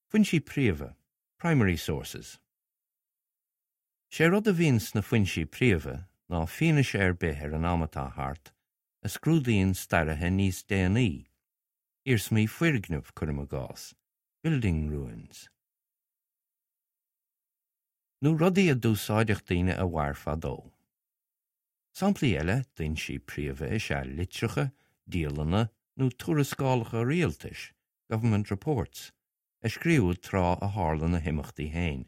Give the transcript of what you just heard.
Foinsí príomha, primary sources. Sé rud a bhíonn sna foinsí príomha ná fianaise ar bith ar an am atá thart a scrúdaíonn staraithe níos déanaí, iarsmaí foirgneamh, cuirim i gcás, building ruins. Nó rudaí a d'úsáideadh daoine a mhair fadó. Samplaí eile d'fhoinsí príomha is ea litreacha, dialanna nó tuarascálacha rialtais, government reports, a scríobhadh tráth a tharla na himeachtaí féin.